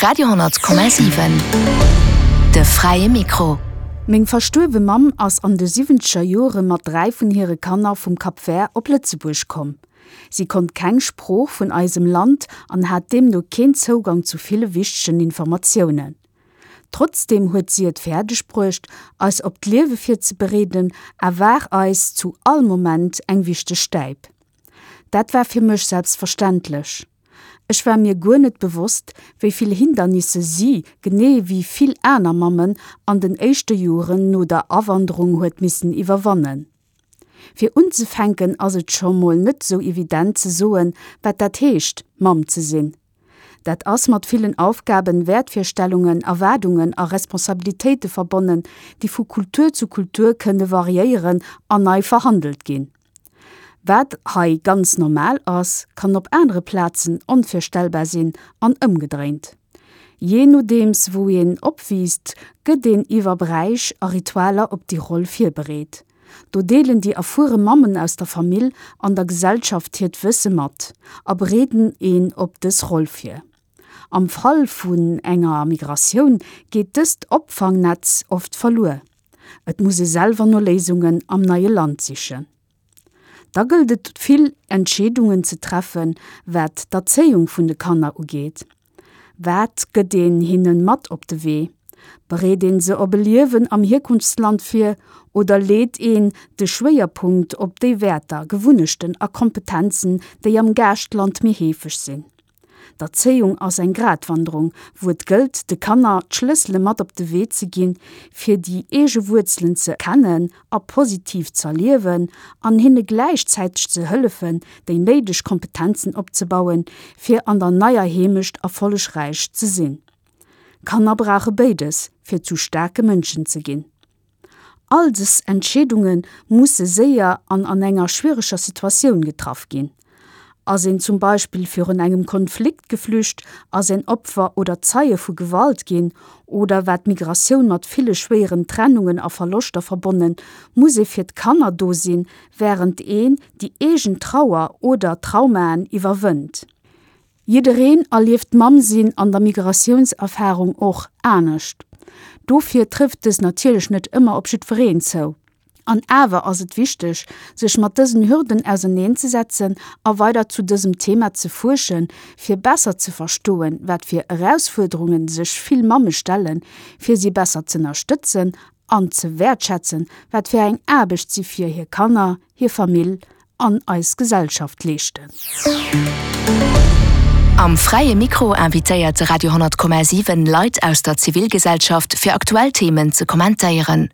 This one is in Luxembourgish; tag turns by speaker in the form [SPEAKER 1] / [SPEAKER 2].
[SPEAKER 1] Radio,7 De fräie Mikro.
[SPEAKER 2] Meng verstuerwe Mamm ass an de siwwenzeger Jore mat 3 vun hire Kanner vum Cap Vert op Lëtzebuerg komm. Si konnt keng Sprooch vun eisem Land an hat deemno keen Zougang zu ville wichtegen Informatiounen. Trotzdeem huet si et fäerdeg bruecht, eis op d'Liewe virzebereeden a war eis zu all Moment eng wichteg Stäip. Dat war fir mech selbstverständlech. Ech war mir guer net bewosst, wéi vill Hindernisse si, genee wéi vill aner Mammen, an den éischte Joren no der Awanderung huet missen iwwerwannen. Fir unzefänken ass et scho mol net sou evident ze soen, wat dat heescht, Mamm ze sinn. Dat ass mat villen Aufgaben, Wäertvirstellungen, Erwaardungen a Responsabilitéite verbonnen, déi vu Kultur zu Kultur kënne variéieren an nei verhandelt ginn. Wat hei ganz normal ass, kann op anere Plazen onvirstellbar sinn an ëmgedréint. Jee nodeems wou een opwiisst, gëtt een iwwer Bräich a Ritualer op déi Roll virbereet. Do deelen déi erfuere Mammen aus der Famill an der Gesellschaft hiert Wësse mat a bereeden een op dës Roll vir. Am Fall vun enger Migratioun geet dëst Opfangnetz oft verluer. Et muss ee selwer no Léisungen am neie Land sichen. Da gëllt et vill Entscheedungen ze treffen, wat d'Erzéiung vun de Kanner ugeet. Wat gëtt een hinnen mat op de Wee? Bereet een se op e Liewen am Hierkunftsland vir oder leet een de Schwéierpunkt op déi Wäerter, Gewunnechten a Kompetenzen, déi am Gaaschtland méi heefeg sinn? D'Erzéiung ass eng Gratwanderung, wou et gëllt, de Kanner d'Schlëssele mat op de Wee ze ginn, fir déi eege Wuerzelen ze kennen a positiv z'erliewen an hinne gläichzäiteg ze hëllefen, déi néideg Kompetenzen opzebauen, fir an der neier Heemecht erfollegräich ze sinn. Kanner brauche béides, fir zu staarke Mënschen ze ginn. All dës Entscheedunge musse séier an an enger schwiereger Situatioun getraff ginn. Ass een zum Beispill virun engem Konflikt geflücht, ass een Opfer oder Zeie vu Gewalt ginn oder war d'Migratioun mat ville schwéieren Trennungen a Verloschter verbonnen, muss ee fir d'Kanner do sinn, wärend een déi eegen Trauer oder Traumaen iwwerwënnt. Jiddereen erlieft d'Mamm-Sinn an der Migratiounserfarung och anescht. Dofir trëfft dës natierlech net ëmmer op jiddwereen zou. An awer ass et wichteg, sech mat dësen Hürden auserneenzesetzen a weider zu dësem Thema ze fuerschen, fir besser ze verstoen, wat fir Erausfuerderunge sech vill Mamme stellen, fir si besser z'ënnerstëtzen an ze wäertschätzen, wat fir eng Aarbecht si fir hir Kanner, hir Famill an eis Gesellschaft leeschten.
[SPEAKER 1] Am Fräie Mikro invitéiert de Radio 10,7 Leit aus der Zivilgesellschaft fir aktuell Themen ze kommentéieren.